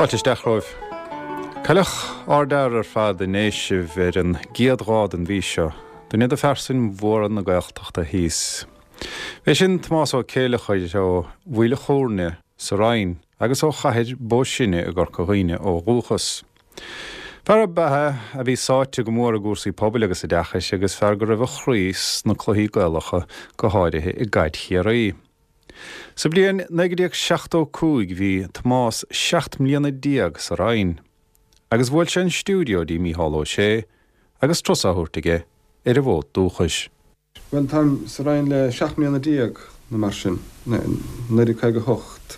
Fáilte isteach romhaibh. Cailleadh ardfhear ar fad i nDéisibh ar an gcéad lá den mhí seo, duine de phearsain mhóra na Gaeltachta thíos. B'é sin Tomás Ó Céileachair ó Mhaoil a' Chúirne sa Rinn agus ó Chathair Bó Sine i gCorca Dhuibhne ó dhúchas. Fear ab ea é a bhí sáite go mór i gcúrsaí pobail agus oideachais agus fear go raibh a chroí sna cluichí Gaelacha, go háirithe i gcaid Chiarraí. Sa bhliain 1975 bhí Tomás 17 mbliana sa Rinn agus bhuail sé an stiúideo dtí Mícheál Ó Sé agus turas á thabhairt aige ar an bhfód dúchais. Bhuel, táim sa Rinn le 17 mbliana nó mar sin, 1958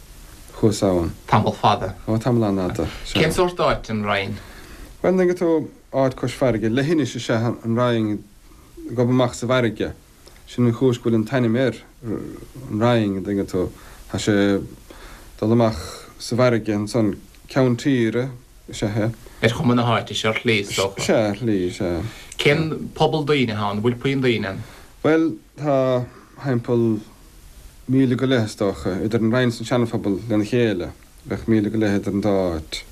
chuas ann. Tamall fada. Ó, tamall an-fhada, sea. Cén sórt áit an Rinn? Bhuel, an dtuigeann tú, áit cois farraige, leithinis is ea an Rinn, ag gobadh amach sa bhfarraige. Sin an chúis go bhfuil an t-ainm air, an Rinn, an dtuigeann tú. Tá sé ag dul amach sa bhfarraige ansan, ceann tíre is ea é. Ar chuma na háite seo, ar shlí, is dócha. Sea, ar shlí, sea. Cén pobal daoine atá ann? An bhfuil puinn daoine ann? Bhuel, tá thimpeall míle go leith, is dócha, idir an Rinn is an Seanaphobal lena chéile. Bheadh míle go leith idir an dá áit.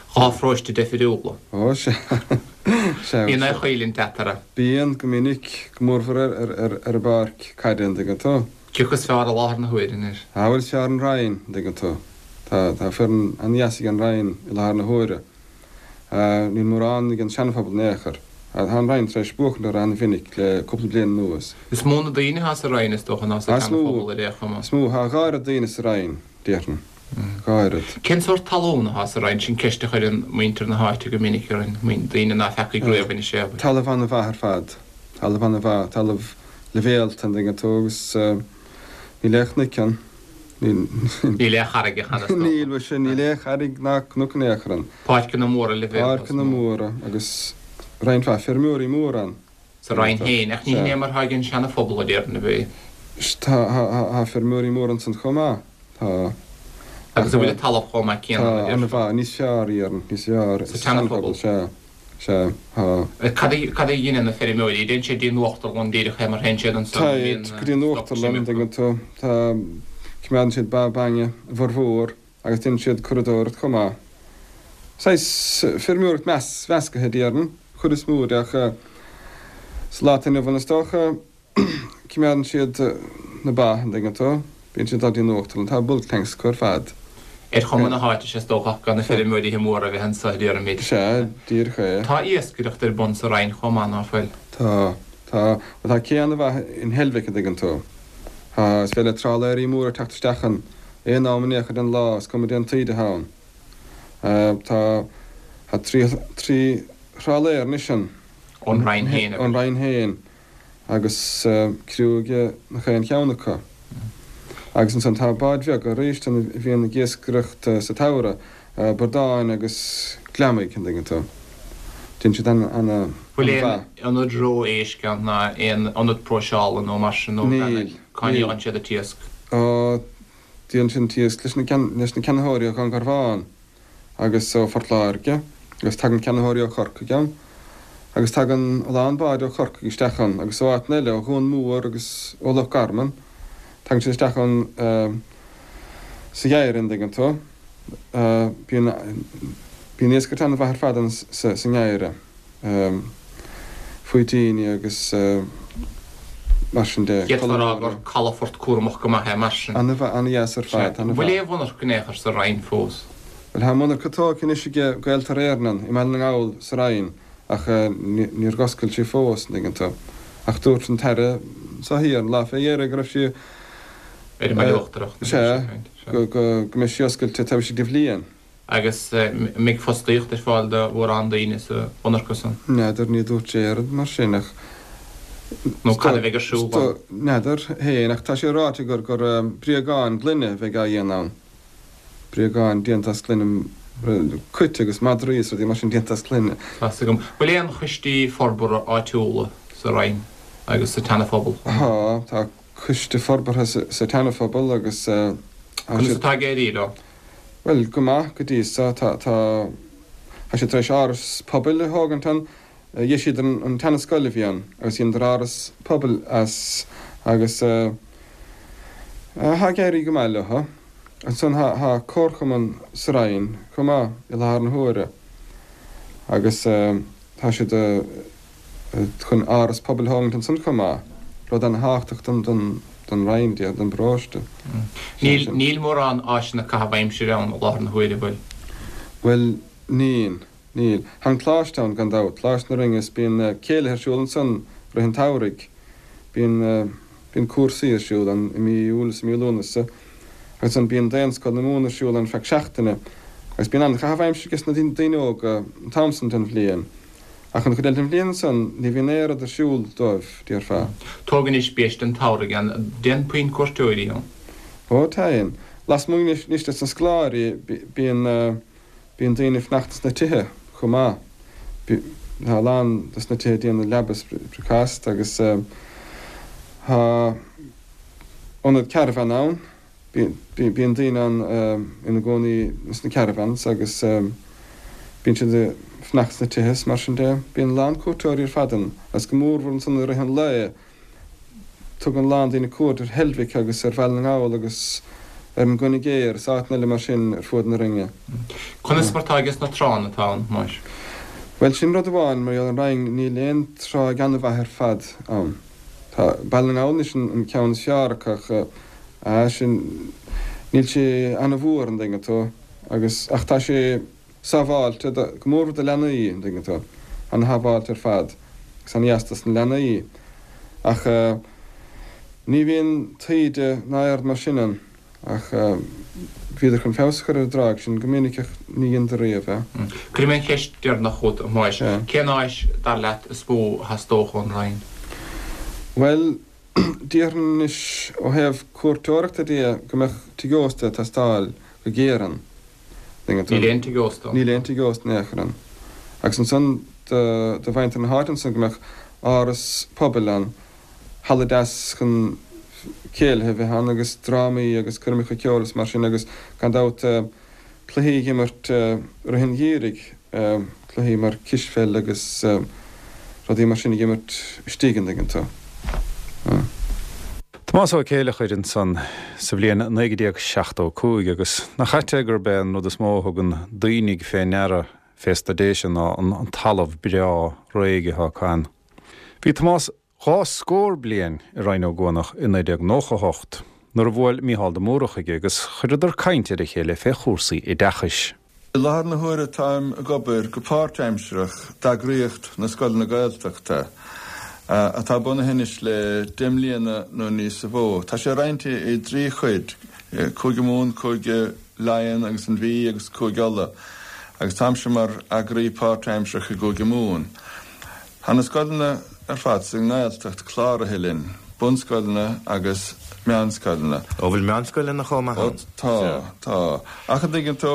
Dhá pharóiste deifiriúla. Ó, sea. Sea. Bíonn aon choimhlint eatarthu. Bíonn, go minic, go mórmhór ar an bpáirc caide, an dtuigeann tú. Cé acu is fearr i láthair na huaire anois? Ah, bhuel, is fearr an Rinn, an dtuigeann tú. Tá, tá foireann an-dheas ag an Rinn i láthair na huaire. Níl mórán ag an Seanaphobal in aon chor. Tá an Rinn tar éis buachaint orthu an-mhinic le cúpla bliain anuas. Is mó na daoine atá sa Rinn, is dócha, ná sa tSeanaphobal ar aon chuma. Is mó, tá a dhá oiread daoine sa Rinn, déarfainn. Dhá oiread. Cén sórt talún atá sa Rinn? Sin ceist a chuireann muintir na háite go minic orainn, daoine ná feacaigh riamh Inis Éabhair. Talamh an-mhaith ar fad. Talamh an-mhaith, talamh leibhéalta, an dtuigeann tú, agus níl aon chnoic ann. Níl. Níl aon charraigeacha ann, is dócha. Níl, bhuel sin, níl aon charraig ná cnoc in aon chor ann. Páirceanna móra leibhéalta. Páirceanna móra agus roinnt mhaith feirmeoirí móra ann. Sa Rinn féin, ach ní hin é mar atá ag an Seana-Phobal, a déarfainn, ab ea? Tá, tá feirmeoirí móra ansan chomh maith, tá. Agus an bhfuil an talamh chomh maith céanna, a déarfá? Tá, an-mhaith, níos fearr, déarfainn, níos fearr. Sa tSeana-Phobal? Sea, sea, tá. Cad a, cad a dheineann na feirmeoirí? Téann siad dtí an uachtarlann díreach é mar théann siad ansan, an mbíonn Téid go dtí an stoc uachtarlann, an dtuigeann tú, tá, coimeádann siad ba bainne, a bhformhór. agus déanann siad curadóireacht chomh maith. Saghas feirmeoireacht mheascaithe, déarfainn, chuid is mó de ach sa lá atá inniu ann is dócha, coimeádann siad na ba, an dtuigeann tú, bíonn siad ag dul dtí an uachtarlann, tá bulk tanks acu ar fad. Ar chuma na háite is dócha ach gan na feirmeoirí móra a bheith anso, déarfaimid. Sea, díreach é. Tá iascaireacht ar bun sa Rinn chomh maith, ná fuil? Tá, tá. Bhuel tá cé an-mhaith in Heilbhic, an dtuigeann tú. Tá, is féidir le trálaeirí móra teacht isteach ann. Aon am in aon chor den lá, is cuma dén taoide atá ann. Tá tá trí thrálaer anois ann. Ón Rinn féin, Ón Rinn féin, agus criú ag gach aon cheann acu. Agus ansan tá báid bheaga arís ann a bhíonn ag iascaireacht sa tsamhradh, bradáin agus gliomaigh, an dtuigeann tú. Déanann siad an-mhaith. Bhfuil aon ionad reo éisc ann ná aon ionad próiseála nó mar sin nó Níl. Cá ndíolann siad an t-iasc? Ó, díolann siad an t-iasc leis na leis na ceannaitheoirí ó Dhún Garbhán agus ó Phort Láirge agus tagann ceannaitheoirí ó Chorcaigh ann agus tagann a lán báid ó Chorcaigh isteach ann agus ó áiteanna eile, ó Dhún Mór agus ó Loch Garman. Tagann siad isteach ann sa gheimhreadh, an dtuigeann tú. Bíonn bíonn iascaireacht an-mhaith ar fad ann sa sa ngeimhreadh. faoitíní agus mar sin de. D'fhéadfá a rá gur calafort cúramach go maith é mar sin. An-mhaith, an-dheas ar fad, an-mhaith. Bhfuil aon mhonarcha in aon chor sa Rinn fós? Bhuel, tá monarcha tógtha anois ag Gaeltarra Éireann i mBaile na nGall sa Rinn ach níor oscail sí fós, an dtuigeann tú. Ach dúirt an tAire seo thiar an lá fé dheireadh go raibh sí, Ar an mBaile Uachtarach, sea, go mbeidh sí oscailte taobh istigh de bhliain. Agus an mbeidh fostaíocht ar fáil do mhórán daoine sa mhonarcha san? N'fheadar, ní dúirt sé aon rud mar sin ach. Nó cad a bheidh ar siúl ann? N'fheadar féin ach tá sé ráite gur gur bréagáin gloine a bheidh á dhéanamh ann. Bréagáin déanta as gloine, cait agus madraí is rudaí mar sin déanta as gloine. Tá's agam. Bhfuil aon choistí forbartha áitiúla sa Rinn agus sa tSeana-Phobal? Tá, tá coiste forbartha sa tSeana-Phobal agus tá Conas atá ag éirí leo? Bhuel, go maith go dtí so. Tá, tá, tá siad tar éis áras pobail a thógaint ann. Dheisíodar an tseana-scoil a bhí ann agus dheineadar áras pobail as agus tá ag éirí go maith leo. Ansan tá comharchumann sa Rinn chomh maith i láthair na huaire agus tá siad chun áras pobail a thógaint ansan chomh maith, rud ana-thábhachtach don Rinn, don bparóiste. Níl, níl mórán áiseanna caitheamh aimsire ann i láthair na huaire, bhfuil? Bhuel, níl, níl. Tá an coláiste ann gan dabht, Coláiste na Rinne is bíonn céilithe ar siúl ansan rith an tsamhraidh. Bíonn, bíonn cúrsaí ar siúl ann i mí Iúil is i mí Lúnasa agus ansan bíonn Daonscoil na Mumhan ar siúl ann feadh seachtaine agus bíonn an-chaitheamh aimsire ages na daoine óga an t-am san den bhliain. Ach an chuid eile den bhliain ansan ní bhíonn aon rud ar siúl dóibh, déarfá. Tóg anois biaiste an tsamhraidh ann, dtéann puinn cuairteoirí ann? Ó, téann. Lasmuigh anois des na scoláirí bíonn, Bíonn daoine ag fanacht sna tithe chomh maith. Tá a lán dos na tithe ag déanamh leaba is bricfeasta agus tá ionad caravan ann. Bíonn daoine ann ina gcónaí sna caravans agus bíonn siad ag fanacht sna tithe is mar sin de. Bíonn a lán cuairteoirí ar fad ann agus go mórmhór ansan i rith an lae. Tugann a lán daoine cuairt ar Heilbhic agus ar Bhaile na nGall agus ar an gCoinne Géar is áiteanna eile mar sin ar fuaid na Rinne. Conas mar atá ages na tránna atá ann, Thomáis? Bhuel, sin rud amháin, mar gheall ar an Rinn, níl aon tráigh an-mhaith ar fad ann. Tá Baile na nGall anois an ceann is fearr acu ach ah sin, níl sé an-mhór, an dtuigeann tú, agus, ach tá sé sábháilte, go mórmhór do leanaí, an dtuigeann tú, an-shábháilte ar fad agus an-dheas dos na leanaí. Ach ní bhíonn taoide ná aon rud mar sin ann ach bhíodar chun feabhas a chur ar an dtráigh sin go minic ach ní dheineadar riamh é. Cuirfidh mé an cheist deireanach chugat, a Thomáis. Cén áis, dar leat, is mó a theastódh ón Rinn? Bhuel, déarfainn anois ó thaobh cuairteoireachta de go mbeadh tigh ósta ag teastáil go géar ann. Níl aon tigh ósta ann. Níl aon tigh ósta in aon chor ann. Agus ansan do mhuintir na háite ansan go mbeadh áras pobail ann, halla deas chun céilithe a bheith ann agus drámaí agus coirmeacha ceoil is mar sin agus gan dabht cluichí a imirt rith an gheimhridh, cluichí mar cispheil agus rudaí mar sin a imirt istigh an dtuigeann tú. Tomás Ó Céileachair ansan sa bhliain 1975 agus nach ait é gurb é an rud is mó a thugann daoine fé ndeara fés na Déise ná an talamh breá réidh atá acu ann. Bhí Tomás dhá scór bliain i Rinn Ó gCuanach i 1998 nuair a bhuail Mícheál de Mórdha chuige agus chuireadar caint ar a chéile fé chúrsaí oideachais. I láthair na huaire táim ag obair go páirtaimsearach d'eagraíocht na Scoileanna Gaeltachta, atá bunaithe anois le 10 mbliana nó níosa mhó. Tá sé roinnte i dtrí chuid, Cúige Mumhan, Cúige Laighean agus an Mhí agus Cúige Uladh, agus táimse mar eagraí páirtaimsearach i gCúige Mumhan. Tá na scoileanna ar fad sa nGaeltacht cláraithe linn, bunscoileanna agus meánscoileanna. Ó, bhfuil meánscoileanna chomh maith ann? Ó tá, tá. Ach an dtuigeann tú,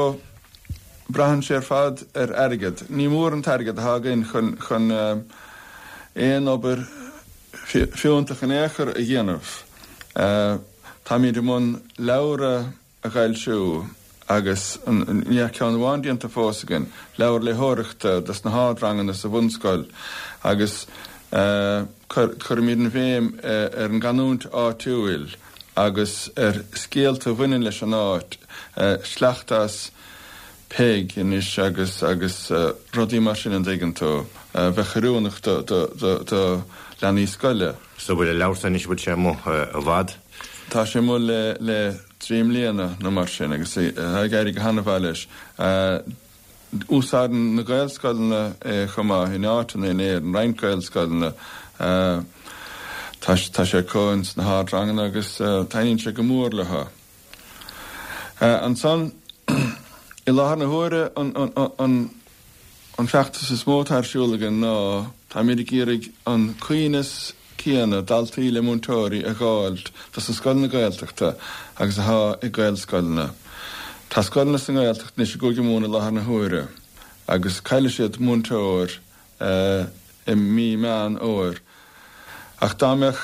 braitheann sé ar fad ar airgead. Ní mór an t-airgead atá againn chun, chun aon obair fiúntach in aon chor a dhéanamh. Táimid i mbun leabhar a. a fhoilsiú agus níl ach ceann amháin déanta fós againn, leabhar léitheoireachta dos na hardranganna sa bhunscoil agus cuirimid an bhéim ar an gcanúint áitiúil agus ar scéalta a bhaineann leis an áit, sleachta as Peig anois agus agus rudaí mar sin an dtuigeann tú, a bheadh oiriúnach do do leanaí scoile. So bhfuil an leabhar san anois, bhfuil sé amuigh i bhfad? Tá sé amuigh le le 3 mbliana nó mar sin agus tá ag éirí go han-mhaith leis. Úsáideann na Gaelscoileanna é chomh maith in áiteanna in Éirinn, roinnt Gaelscoileanna. Tá tá sé acu ins na hardranganna agus taitníonn sé go mór leo. Ansan, i láthair na huaire an an an feachtas is mó atá ar siúl againn ná táimid ag iarraidh an coibhneas céanna daltaí le múinteoirí a dh'fháilt dos na scoileanna Gaeltachta agus athá ag Gaelscoileanna. Tá scoileanna sa nGaeltacht anois i gCúige Mumhan i láthair na huaire agus caillfidh siad múinteoir i mí Meán Fhómhair. Ach dá mbeadh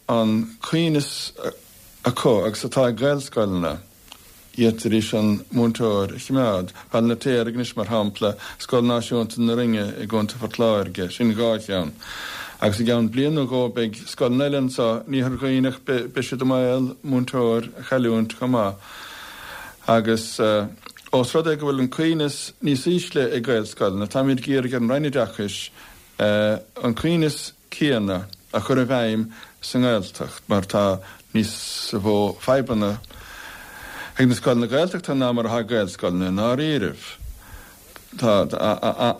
an coibhneas acu agus atá ag Gaelscoileanna. D'fhéadfaidís an múinteoir a choimeád. Baile an Fheirtéaraigh anois, mar shampla, Scoil Náisiúnta na Rinne i gContae Phort Láirge, sin dhá cheann. Agus i gceann bliain nó dhó beidh scoileanna eile anseo in Iarthar Dhuibhneach, beidh siad i mbaol múinteoir a chailliúint chomh maith. Agus ós rud é go bhfuil an coibhneas níos ísle ag Gaelscoileanna, táimid ag iarraidh ar an Roinn Oideachais an coibhneas céanna a chur i bhfeidhm sa nGaeltacht mar tá níos mó fadhbanna ag na scoileanna Gaeltachta ná mar atá ag Gaelscoileanna i ndáiríribh. Tá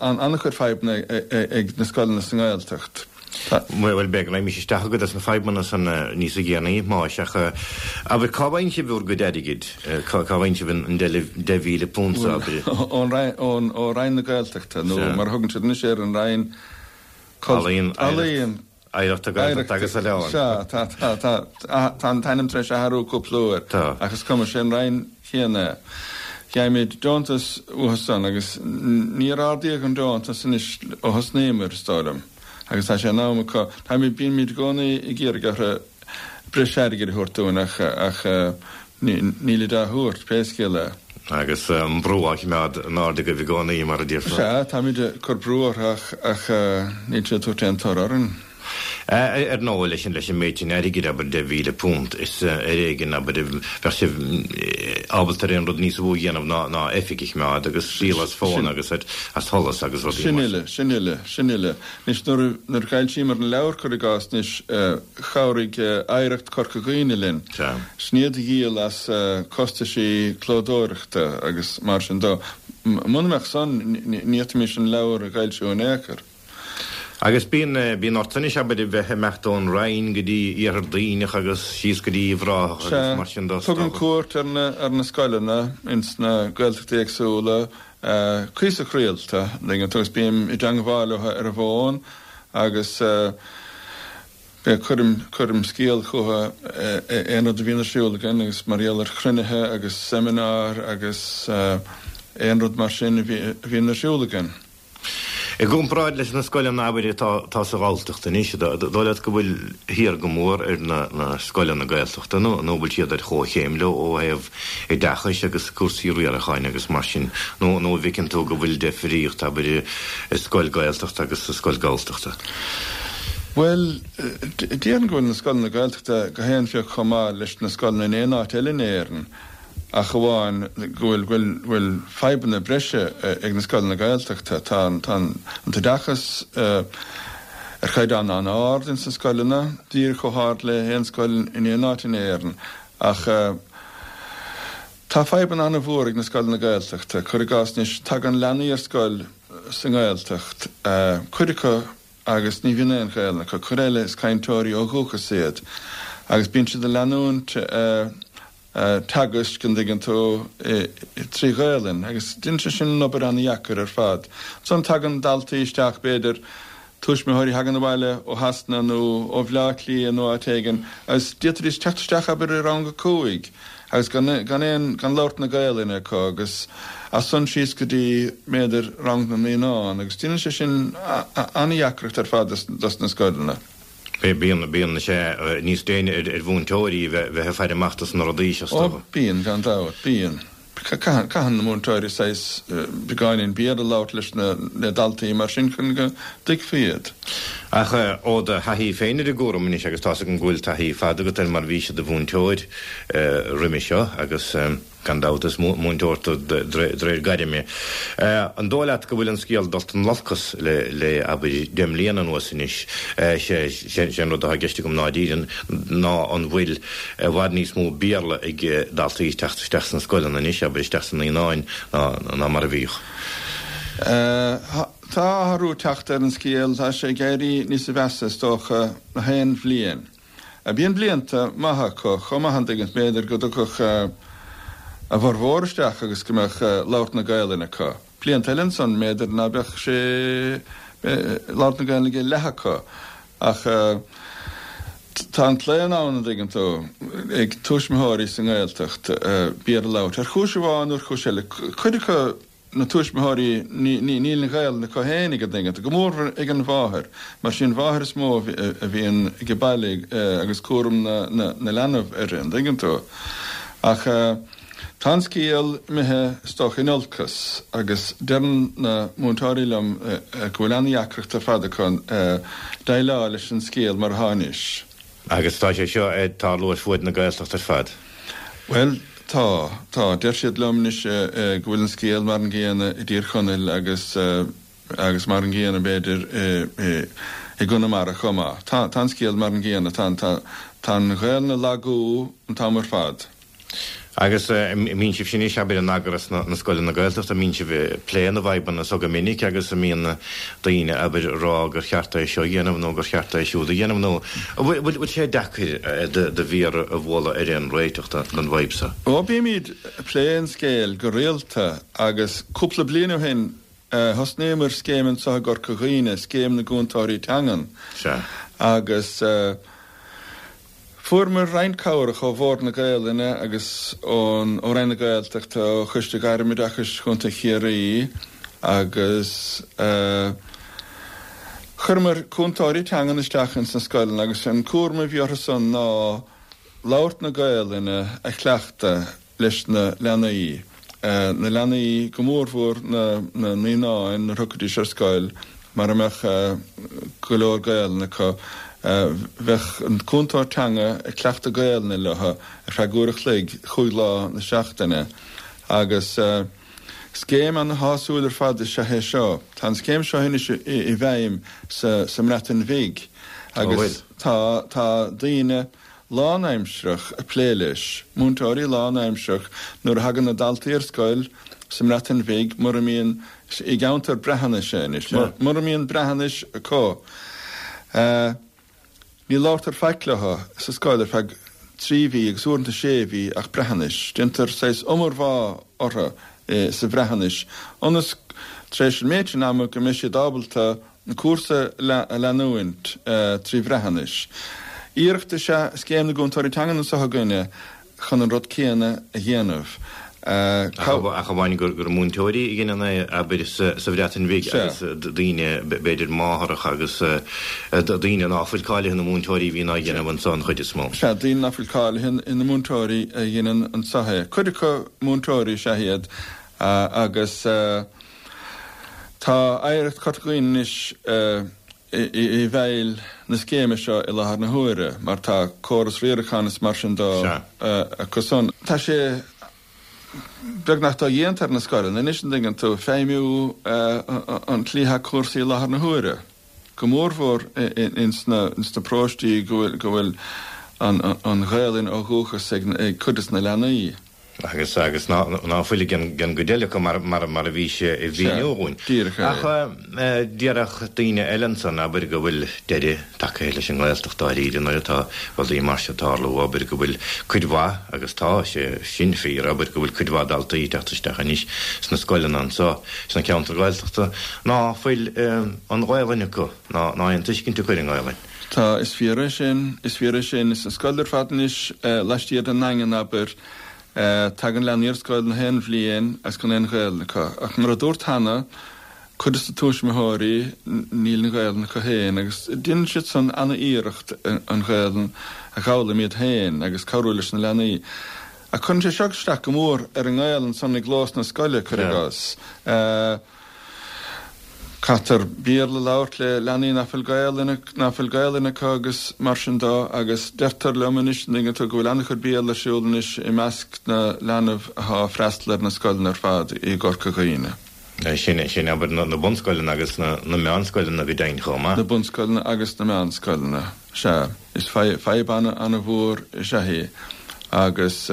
an-chuid fadhbanna ag na scoileanna sa nGaeltacht. Tá. Bhuel, b'fhéidir go raghaimís isteach i gcuid des na fadhbanna san níos déanaí, Thomáis, ach abair, cá bhfaigheann sibh bhur gcuid airgid? Cá bhfaigheann sibh an £10,000, abair? Bhuel, ó Roinn na Gaeltachta, nó mar a thugann siad anois air, an Roinn Ealaíon, Ealaíon. Oidhreachta, Gaeltachta agus Oileán. Sea, tá, tá, tá, tá an t-ainm tar éis athrú cúpla uair. Tá. Ach is cuma, sé an Roinn chéanna é. Faighimid deontas uathu san agus níor ardaíodh an deontas anois ó thosnaíomar, is dóigh liom. Agus tá sé in am acu, táimid, bímid i gcónaí ag iarraidh orthu breis airgid a thabhairt dúinn ach, ach nílid á thabhairt, pé scéal é. Agus an brú á choimeád in airde agaibh i gcónaí, mar a déarfá. Sea, táimid ag cur brú orthu ach, ach níl siad ag tabhairt aon toradh orainn. Ar ndóigh, leis an, leis an méid sin airgid, abair, £10,000, is ar éigean, abair, a bheadh sibh ábalta ar aon rud níos mó a dhéanamh ná, ná oifig a choimeád agus díol as fón agus as solas agus rudaí Sin mar uile, sin uile, sin uile. Anois, nuair a, nuair a d'fhoilsíomar an leabhar, cuir i gcás, anois, chabhraigh Oidhreacht Chorca Dhuibhne linn. Sea. Sin iad a dhíol as costaisí clódóireachta agus mar sin dó. Muna mbeadh san, ní fhéadfaimis an leabhar a fhoilsiú in aon chor. Agus bíonn, bíonn ort anois, abair, a bheith ag imeacht ón Rinn go dtí Iarthar Duibhneach agus síos go dtí Uíbh Ráthach agus mar sin dó. Sea. Tugaim cuairt ar na, ar na scoileanna ins na Gaeltachtaí éagsúla. cuíosach rialta, an dtuigeann tú, agus bím i dteangmháil leo ar an bhfón agus cuirim, cuirim scéal chucu aon rud a bhíonn ar siúl againn agus mar gheall ar chruinnithe agus seimineáir agus aon rud mar sin a bhíonn ar siúl againn. I gcomparáid leis na scoileanna, abair, atá sa Ghalltacht anois, an dóigh leat go bhfuil thiar go mór ar na scoileanna Gaeltachta nó an bhfuil siad ar chomhchéim leo ó thaobh oideachais agus cúrsaí riaracháin agus mar sin, nó an bhfeiceann tú go bhfuil deifríocht, abair, i scoil Gaeltachta agus i scoil Galltachta? Bhuel, déarfainn go bhfuil na scoileanna Gaeltachta gach aon phioc chomh maith leis na scoileanna in aon áit eile in Éirinn. ach amháin go bhfuil go bhfuil fadhbanna breise ag na scoileanna Gaeltachta. Tá an tá an t-oideachas ar chaighdeán an-ard ins na scoileanna, díreach chomh hard le haon scoil in aon áit in Éirinn, ach tá fadhbanna an-mhór ag na scoileanna Gaeltachta. Cuir i gcás anois, tagann leanaí ar scoil sa nGaeltacht, cuid acu agus ní bhíonn aon Ghaelainn acu, cuid eile is cainteoirí ó dhúchas iad agus bíonn siad ag leanúint teagaisc, an dtuigeann tú, trí Ghaelainn agus déanann sé sin an obair an-dheacair ar fad. Ansan tagann daltaí isteach, b'fhéidir, tuismitheoirí a thagann abhaile ó Shasana nó ó Bhleá Cliath nó áit éigin agus d'fhéadfaidís teacht isteach, abair, i rang a 5 agus gan gan aon, gan labhairt na Gaelainne acu agus as san síos go dtí, b'fhéidir, rang na naíonán agus déanann sé sin an-dheacracht ar fad dos na scoileanna. Bíonn, bíonn sé níos déine ar mhúinteoirí a bheith ag faire amach dos na rudaí seo, is dócha. Ó, bíonn, gan dabht, bíonn. Caitheann, caitheann na múinteoirí saghas beagáinín Béarla a labhairt leis na, le daltaí mar sin chun go dtuigfí iad. Ach ó do thaithí féin ar an gcúram anois, agus tá's agam go bhfuil taithí fada agat air mar bhís i do mhúinteoir roimhe seo agus. Gan dabht, is múinteoir tú de réir gairme. An dóigh leat go bhfuil an scéal dulta in olcas le, abair, 10 mbliana anuas anois? Sé an rud atá i gceist agam ná díreach ná an bhfuil i bhfad níos mó Béarla ag daltaí ag teacht isteach sna scoileanna anois, abair, isteach sna naíonáin, ná mar a bhíodh? Tá athrú ag teacht ar an scéal. Tá sé ag éirí níosa mheasa, is dócha, na haon bhliain. Bíonn blianta maithe acu chomh maith an dtuigeann, b'fhéidir go dtiocfadh a bhformhór isteach agus go mbeadh labhairt na Gaelainne acu. Blianta eile ansan b'fhéidir ná beadh sé labhairt na Gaelainne ag leath acu. Ach tá an claonadh ann, an dtuigeann tú, ag tuismitheoirí sa nGaeltacht Béarla a labhairt ar chúis amháin nó ar chúis eile. Cuid acu na tuismitheoirí, níl an Ghaelainn acu féinig, an dtuigeann tú, go mór ag an mháthair, mar sí an mháthair is mó a bhíonn ag baile agus cúram na leanbh uirthi, an dtuigeann tú. Ach tá an scéal imithe, is dócha, in olcas agus deireann na múinteoirí liom go bhfuil an-dheacracht ar fad acu déileáil leis an scéal mar atá anois. Agus tá sé seo ag tarlú ar fuaid na Gaeltachta ar fad. Bhuel. Tá, tá. Deir siad liom anois go bhfuil an scéal mar an gcéanna i dTír Chonaill agus agus mar an gcéanna b'fhéidir i gConamara chomh maith. Tá, tá an scéal mar an gcéanna. Tá, tá, tá an Ghaelainn ag lagú an t-am ar fad. Agus an mbíonn sibhse anois, abair, in eagras na scoileanna Gaeltachta, an mbíonn sibh ag plé na bhfadhbanna so go minic agus an mbíonn daoine, abair, ag rá gur cheart é seo a dhéanamh nó gur cheart é siúd a dhéanamh nó an bhfuil sé deacair do mhéar a bhualadh ar aon réiteach don bhfadhb so? Ó, bímid ag plé an scéil go rialta agus cúpla bliain ó shin thosnaíomar scéim anseo i gCorca Dhuibhne, Scéim na gCúntóirí Teangan. Sea. Agus. Fuaireamar roinnt cabhrach ó Bhord na Gaelainne agus ón ó Roinn na Gaeltachta, ó Choiste Gairmoideachais Chontae Chiarraí agus chuireamar cúntóirí teangan isteach ins na scoileanna agus an cúram a bhí orthu san ná labhairt na Gaelainne a chleachtadh. leis na leanaí, na leanaí, go mórmhór na naíonáin nuair a thiocfaidís ar scoil, mara mbeadh go leor Gaelainne acu, bheadh an cúntóir teanga ag cleachtadh Gaelainne leo ar feadh uair a chloig, chúig lá na seachtaine. Agus scéim ana-shásúil ar fad is ea é seo. Tá an scéim seo anois i bhfeidhm sa mBreatain Bhig agus tá tá daoine, lánaimsearach ag plé leis, múinteoirí lánaimsearach, nuair a thagann na daltaí ar scoil sa mBreatain Bhig, mura mbíonn, i gceantar Breatnaise anois, mura mbíonn Breatnais acu, ní labhartar faic leo sa scoil ar feadh 3 mhí agus uaireanta 6 mhí ach Breatnais. Déantar saghas iomarbhá orthu sa Bhreatnais ionas tar éis an méid sin ama go mbeidh siad ábalta an cúrsa a leanúint trí Bhreatnais. Iarracht is ea Scéim na gCúntóirí Teangan anseo againne chun an rud céanna a dhéanamh. Ach amháin gur múinteoirí a dheineann é, abair, sa Bhreatain Bhig agus daoine, b'fhéidir máthaireacha agus daoine ná fuil cáilithe ina múinteoirí a bhíonn á dhéanamh anseo an chuid is mó. Sea, daoine ná fuil cáilithe ina múinteoirí a dheineann anseo é. Cuid acu múinteoirí is ea iad agus. Tá Oidhreacht Chorca Dhuibhne anois i bhfeighil na scéime seo i láthair na huaire mar tá córas riaracháin is mar sin dó acu san. Tá sé beagnach dodhéanta ar na scoileanna anois, an dtuigeann tú, feidhmiú an tslí atá cúrsaí i láthair na huaire, go mórmhór ins na paróistí go bhfuil an Ghaelainn ó dhúchas ag cuid des na leanaí. Agus, agus ná, ná fuil ag an, an gcuid eile acu mar, mar, mar a bhís ag mhíniú dhúinn. Díreach é. Ach déarfadh daoine eile ansan, abair, go bhfuil deireadh tagtha leis an nGaeltacht dáiríre nuair atá rudaí mar seo ag tarlú, abair, go bhfuil cuid mhaith, agus tá sé sin fíor, abair, go bhfuil cuid mhaith daltaí ag teacht isteach anois sna scoileanna anso, sna ceantair Ghaeltachta, ná fuil an Ghaelainn acu, ná, ná aon tuiscint acu ar an nGaelainn. Tá, is fíor é sin, is fíor é sin. Is an scoil ar fad anois laistiar den nDaingean, abair, tagann leanaí ar scoil na haon bhliain agus gan aon Ghaelainn acu. Ach mar a dúrt cheana, cuid de na tuismitheoirí, níl an Ghaelainn acu féin agus déanann siad san ana-iarracht an Ghaelainn a dh'fhoghlaim iad féin agus cabhrú leis na leanaí. Ach cuireann sé seo isteach go mór ar an nGaelainn san i gclós na scoile, cuir i gcás. Caithfear Béarla a labhairt le leanaí nach bhfuil Gaelainn, nach bhfuil Gaelainn acu agus mar sin dó agus deirtear liom anois, an dtuigeann tú, go bhfuil an-chuid Béarla ar siúl anois i measc na leanbh athá ag freastal ar na scoileanna ar fad i gCorca Dhuibhne. Sin, sin abair na bunscoileanna agus na meánscoileanna go deimhin chomh maith. Na bunscoileanna agus na meánscoileanna. Sea, is fadhb ana-mhór is ea í agus.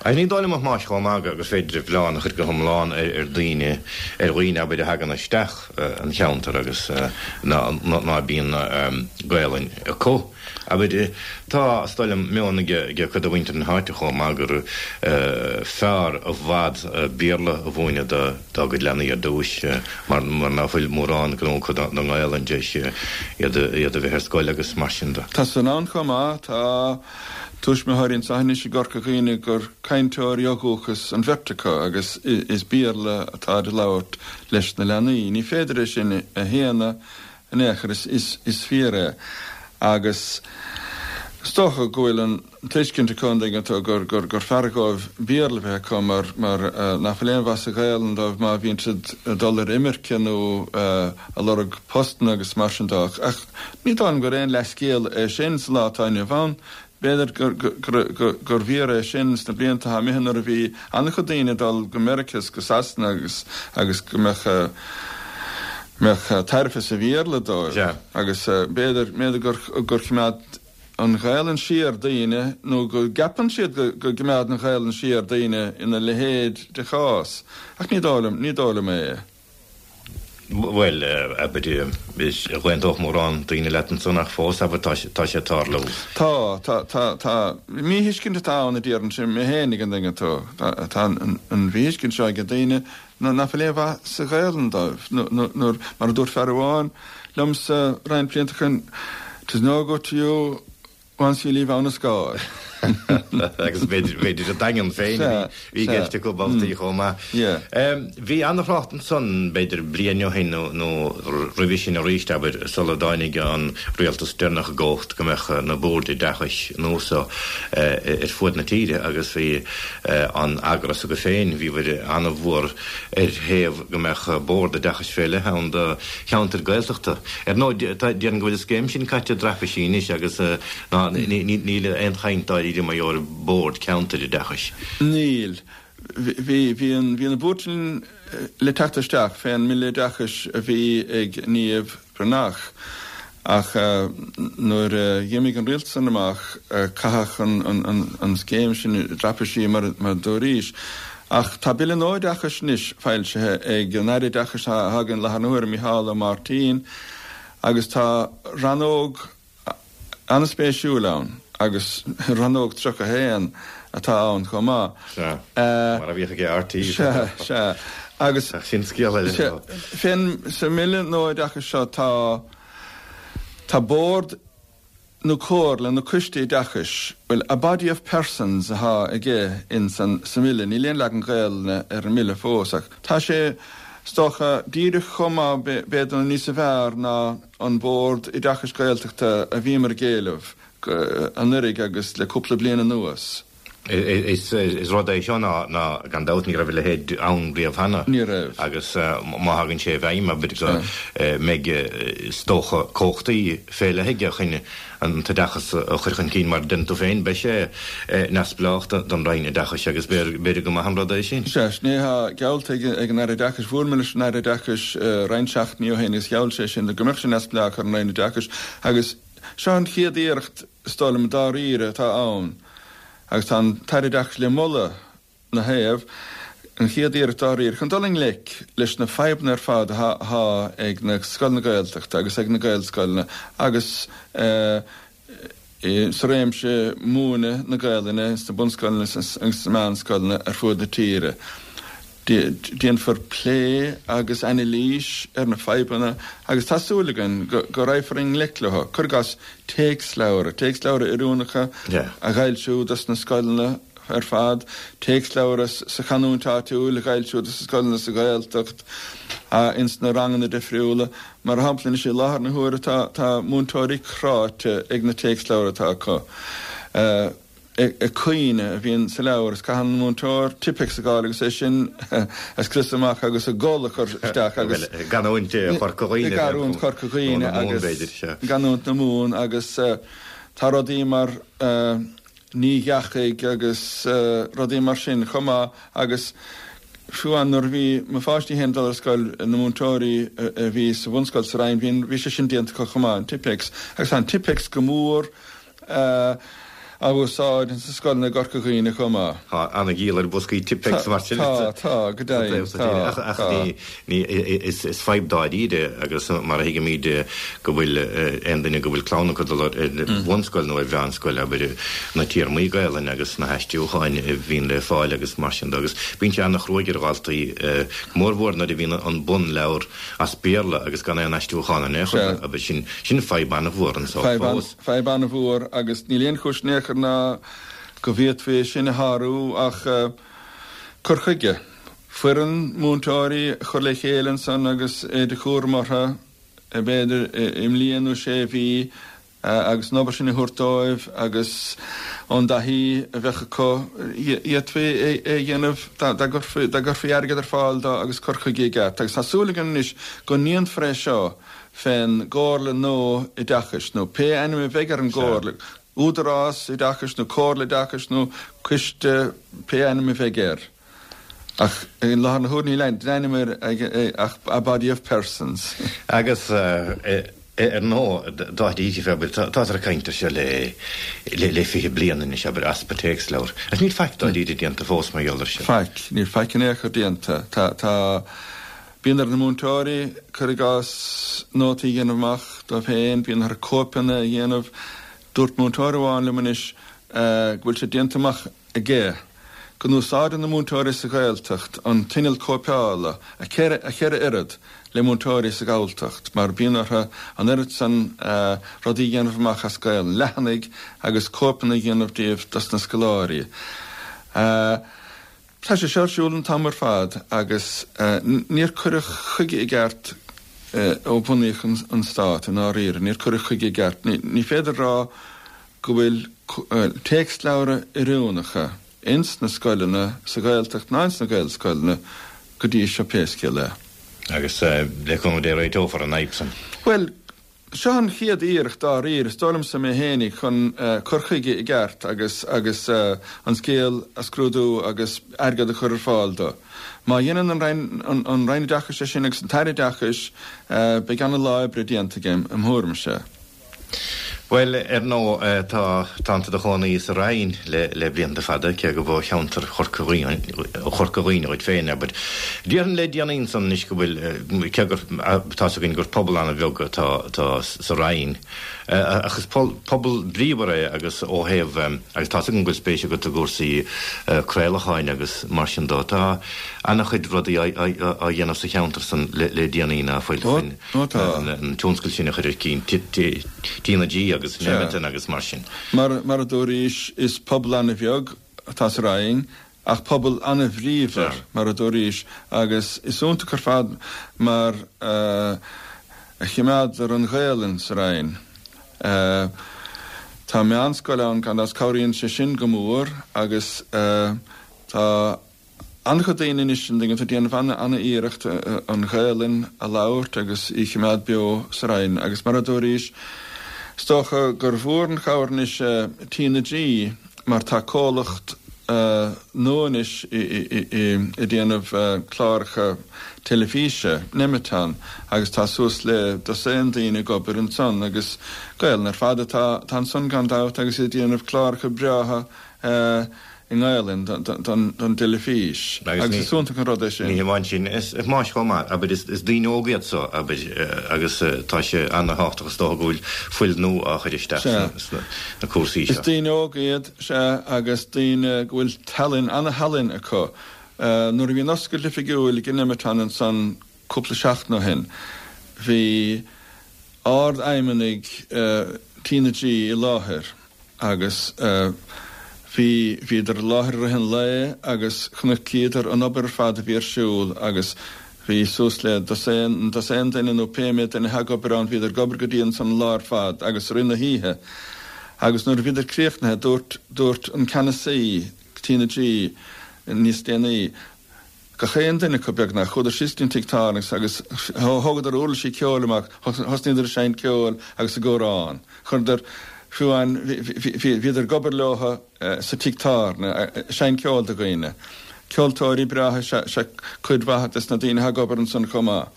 Ach ní dóigh liom a Thomáis chomh maith gur féidir an mhilleán a chur go hiomlán ar daoine, ar dhaoine abair a thagann isteach an cheantar agus ná bíonn Gaelainn acu. Abair, tá, is dóigh liom, meon ag cuid de mhuintir na háite chomh maith gur fearr i bhfad Béarla a mhúineadh do dá gcuid leanaí ar dtúis mar ná fuil mórán gnó acu don nGaelainn tar éis iad a bheith ar scoil agus mar sin de. Tá san ann chomh maith. Tá tuismitheoirí anseo anois i gCorca Dhuibhne gur cainteoirí ó dhúchas an bheirt acu agus is Béarla atáid a labhairt leis na leanaí. Ní féidir é sin a shéanadh in aon chor, is fíor é. Agus is dócha go bhfuil an tuiscint acu, an dtuigeann tú, gur fearr dhóibh Béarla a bheith acu mar nach bhfuil aon mhaith sa Ghaelainn dóibh má bhíonn siad ag dul ar imirce nó ag lorg postanna agus mar sin de. Ach ní dóigh liom gur aon leathscéal é sin sa lá atá inniu ann. B'fhéidir gur bhfíor é sin sna blianta atá imithe nuair a bhí an-chuid daoine ag dul go Meiriceá is go Sasana agus agus go mbeadh mbeadh tairbhe sa Bhéarla dóibh. Agus b'fhéidir b'fhéidir gur gur choimeád an Ghaelainn siar daoine nó go gceapann siad go go gcoimeád an Ghaelainn siar daoine ina leithéid de chás. Ach ní dóigh liom ní dóigh liom é. Bhuel, abair, d'aontódh mórán daoine leat ansan ach fós, abair, tá sé ag tarlú. Tá, tá, tá, tá. Míthuiscint atá ann a déarfainnse mé féin an dtuigeann tú. Tá an mhíthuiscint seo ag daoine ná fuil aon mhaith sa Ghaelainn dóibh. Nuair, mar a dúirt fear amháin liomsa roinnt blianta ó shin, 'Tis no good to you Once you leave Abha na Scáil. Agus b'fhéidir an Daingean féin a bhí i gceist acu babhtaí chomh maith. Bhí an-thrácht ansan b'fhéidir bliain ó shin nó roimhe sin arís, abair, sula dtáinig an rialtas deireanach i gcumhacht go mbeadh na boird oideachais nua seo ar fuaid na tíre agus bhí an eagras agaibh féin, bhíobhair an-mhór ar thaobh go mbeadh bord oideachais fé leith ann do cheantair Gaeltachta. Ar ndóigh, déarfainn go bhfuil an scéim sin caite i dtraipisí anois agus ná níl aon chaint dáiríre mar gheall ar bhord ceantair oideachais. Níl. Bhí, bhí an, bhí na boird sin le teacht isteach fén mBille Oideachais a bhí ag Niamh Bhreathnach ach nuair a dh'imigh an rialtas san amach caitheadh an scéim sin i dtraipisí mar a dúraís. Ach tá Bille nua Oideachais anois foilsithe ag an Aire Oideachais atá againn i láthair na huaire, Micheál Ó Máirtín, agus tá rannóg an-spéisiúil ann agus rannóg 31 atá ann chomh maith. Sea, mar a bhíodh ag RTÉ. Sea, sea. Agus. Ach sin scéal eile. Sea, fén, sa mBille nua Oideachais seo tá, tá bord nó comhairle nó coiste oideachais, bhuel, a body of persons atá aige ins an, sa mBille, níl aon leagan Gaelainne ar an mBille fós ach tá sé, is dócha, díreach chomh maith, b'fhéidir nó níosa bhfearr ná an Bord Oideachais Gaeltachta a bhíomar ag éileamh anuraidh agus le cúpla bliain anuas. Is rud é seo ná, gan dabht, ní raibh a leithéid ann riamh cheana. Ní raibh. Agus má thagann sé i bhfeidhm, abair, go mbeidh, is dócha, cumhachtaí fé leith aige chun an t-oideachas a chur chun cinn, mar a deireann tú féin, beidh sé neamhspleách don Roinn Oideachais agus b'fhéidir go maith an rud é sin. Sea, sin é atá geallta ag an Aire Oideachais. Bhuail mé leis an Aire Oideachais roinnt seachtainí ó shin agus gheall sé sin go mbeadh sé neamhspleách ar an Roinn Oideachais agus seo an chéad iarracht, is dóigh liom, dáiríre atá ann agus tá an tAire Oideachais le moladh 'na thaobh, an chéad iarracht dáiríre chun dul i ngleic leis na fadhbanna ar fad atá ag na scoileanna Gaeltachta agus ag na Gaelscoileanna agus sa réimse múineadh na Gaelainne sna bunscoileanna agus sna meánscoileanna ar fuaid na tíre. Déanfar plé agus anailís ar na fadhbanna agus tá súil againn go raghfar i ngleic leo. Cuir i gcás téacsleabhra, téacsleabhra oiriúnacha a dh'fhoilsiú dos na scoileanna ar fad, téacsleabhra sa chanúint áitiúil a dh'fhoilsiú dos na scoileanna sa Ghaeltacht, ins na ranganna difriúla. Mar shampla anois i láthair na huaire tá múinteoirí cráite ag na téacsleabhra atá acu. Ag caoineadh a bhíonn sa leabhar is caitheann an múinteoir Tipp-Ex a fháil agus é sin a scriosadh amach agus an gal a chur isteach agus. I gcanúint Chorca Dhuibhne. I gcanúint Chorca Dhuibhne agus i gcanúint na Mumhan agus tá rudaí mar ní dheachaigh agus rudaí mar sin chomh maith agus fiú amháin nuair a bhí mo pháistí féin ag dul ar scoil na múinteoirí a bhí sa bhunscoil sa Rinn bhí sé sin déanta acu chomh maith, an Tipp-Ex agus tá an Tipp-Ex go mór á úsáid ins na scoileanna i gCorca Dhuibhne chomh maith. Tá an-dhíol ar bhoscaí Tipp-Ex mar sin. Tá, tá, go deimhin, tá, Ach tá. ní, is fadhb dáiríre agus mar a thuigimid go bhfuil aon duine go bhfuil clann acu ag dul ar bhunscoil nó ar mheánscoil, abair, na téarmaí Gaelainne agus na haistriúcháin a bhíonn le fáil agus mar sin de agus bíonn sé an-chruaidh ar dhaltaí, go mórmhór nuair a bhíonn an bunleabhar as Béarla agus gan aon aistriúchán in aon chor, abair, sin, sin fadhb an-mhór anso fós. Fadhb an-mhór agus níl aon chúis in aon chor ná go bhféadfaí é sin a shárú ach cur chuige. Foireann múinteoirí a chur le chéile ansan agus é de chúram orthu, b'fhéidir i mbliain nó sé mhí, agus an obair sin a thabhairt dóibh agus ón dtaithí a bheadh acu, d'fhéadfaí é a dhéanamh dá gcuirfí airgead ar fáil dó agus cur chuige i gceart. Agus tá súil againn anois go ndéanfar é seo fén gComhairle nua Oideachais, nó pé ainm a bheidh ar an gComhairle. Údarás Oideachais nó Comhairle Oideachais nó Coiste, pé ainm a bheidh air. Ach i láthair na huaire níl ainm air ach a body of persons. Agus ar ndóigh, dáiríre, abair, táthar ag caint air seo le le 20 bliain anois, abair, easpa téacsleabhar. Agus níl faic dáiríre déanta fós mar gheall air seo. Faic. Níl faic in aon chor déanta. Tá, tá, bíonn ar na múinteoirí, cuir i gcás, nótaí a dhéanamh amach dóibh féin, bíonn orthu cóipeanna a dhéanamh. Dúirt múinteoir amháin liom anois go bhfuil sé déanta amach aige go n-úsáideann na múinteoirí sa Ghaeltacht an t-inneall cóipeála a cheithre oiread le múinteoirí sa Ghalltacht mar bíonn orthu an oiread san rudaí a dhéanamh amach as Gaelainn, leathanaigh agus cóipeanna a dhéanamh díobh dos na scoláirí. Tá sé seo ar siúl an t-am ar fad agus níor cuireadh chuige i gceart ó bunaíodh an Stát i ndáiríre, níor cuireadh chuige i gceart. Ní féidir a rá go bhfuil téacsleabhra oiriúnacha ins na scoileanna sa Ghaeltacht ná ins na Gaelscoileanna go dtí seo pé scéal é. Agus le cúnamh Dé réiteofar an fhadhb san. Bhuel, seo an chéad iarracht dáiríre, is dóigh liomsa mé fhéinig, chun cur chuige i gceart agus agus an scéal a scrúdú agus airgead a chur ar fáil dó. Má dhéanann an Roinn an Roinn Oideachais é sin agus an tAire Oideachais, beidh ana-lá oibre déanta aige, im thuairimse. Bhuel, ar ndóigh, tá, tánn tú i do chónaí sa Rinn le, le blianta fada, cé gurb ó cheantar Chorca Dhuibhne, Chorca Dhuibhne dhuit féin, abair. Déarfainn le déanaí ansan anois go bhfuil, cé gur, tá's againn gur pobal an-bheag atá, atá sa Rinn, ach is pobal bríomhar é agus ó thaobh, agus tá's agam go bhfuil spéis agat i gcúrsaí craolacháin agus mar sin dó, tá an-chuid rudaí á, á, á dhéanamh sa cheantar san le, le déanaí ná fuil, Ó. Ó tá. an tionscal sin a chur ar cinn, TnaG agus Nemeton agus mar sin. Mar, mar a dúraís, is pobal an-bheag atá sa Rinn, ach pobal an-bhríomhar, mar a dúraís, agus is iontach ar fad mar a choimeádtar an Ghaelainn sa Rinn. Tá meánscoil ann, gan dabht, cabhraíonn sé sin go mór agus tá. An-chuid daoine anois an dtuigeann tú ag déanamh an-iarracht an Ghaelainn a labhairt agus í a choimeád beo sa Rinn agus mar a dúraís, is dócha gur mhór an chabhair anois TnaG mar tá comhlacht nua anois ag déanamh cláracha teilifíse, Nemeton, agus tá suas le dosaen daoine ag obair ansan agus Gaelainn ar fad atá ansan gan dabht agus iad ag déanamh cláracha breátha i nGaelainn don dteilifís agus is iontach an rud é sin. Ní hamháin sin, is más chomh maith, abair, is daoine óga iad so, abair, agus tá sé ana-thábhachtach is dócha go bhfuil fuil nua á chur isteach sna cúrsaí seo. Is daoine óga iad, sea, agus daoine go bhfuil tallann, ana-thallann acu. Nuair a bhí an oscailt oifigiúil ag Nemeton ansan cúpla seachtain ó shin, bhí ard-fheidhmeannaigh TnaG i láthair agus bhí, bhíodar i láthair i rith an lae agus chonaicíodar an obair ar fad a bhí ar siúl agus bhí suas le dosaen, dosaen duine nó pé méid duine atá ag obair ann, bhíodar ag obair go dian ansan an lá ar fad agus i rith na hoíche agus nuair a bhíodar críochnaithe dúirt, dúirt an ceannasaí TnaG níos déanaí, Gach aon duine acu, beagnach, chuadar síos go dtí an tigh tábhairne agus thógadar uirlisí ceoil amach, thosnaíodar ag seinnt ceoil agus ag amhrán. Chuireadar, fiú amháin, bhíodar ag obair leo sa tigh tábhairne, ag seinnt ceoil do dhaoine. Ceoltóirí breátha is ea cuid mhaith des na daoine atá ag obair ansan chomh maith.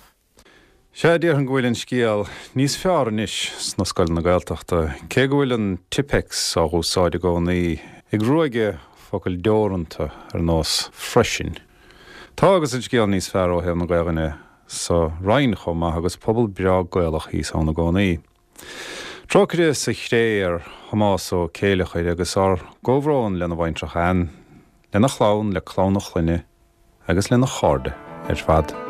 Sea, déarfainn go bhfuil an scéal níos fearr anois sna scoileanna Gaeltachta, cé go bhfuil an Tipp-Ex á úsáid i gcónaí, ag ruaigeadh focail deoranta ar nós 'freisin'. Tá agus an scéal níos fearr ó thaobh na Gaelainne sa Rinn chomh maith agus pobal breá Gaelach thíos ann i gcónaí. Trócaire sa chré ar Thomás Ó Céileachair agus ár gcomhbhrón lena bhaintreach Ann, lena chlann, le clann a chlainne agus lena chairde ar fad.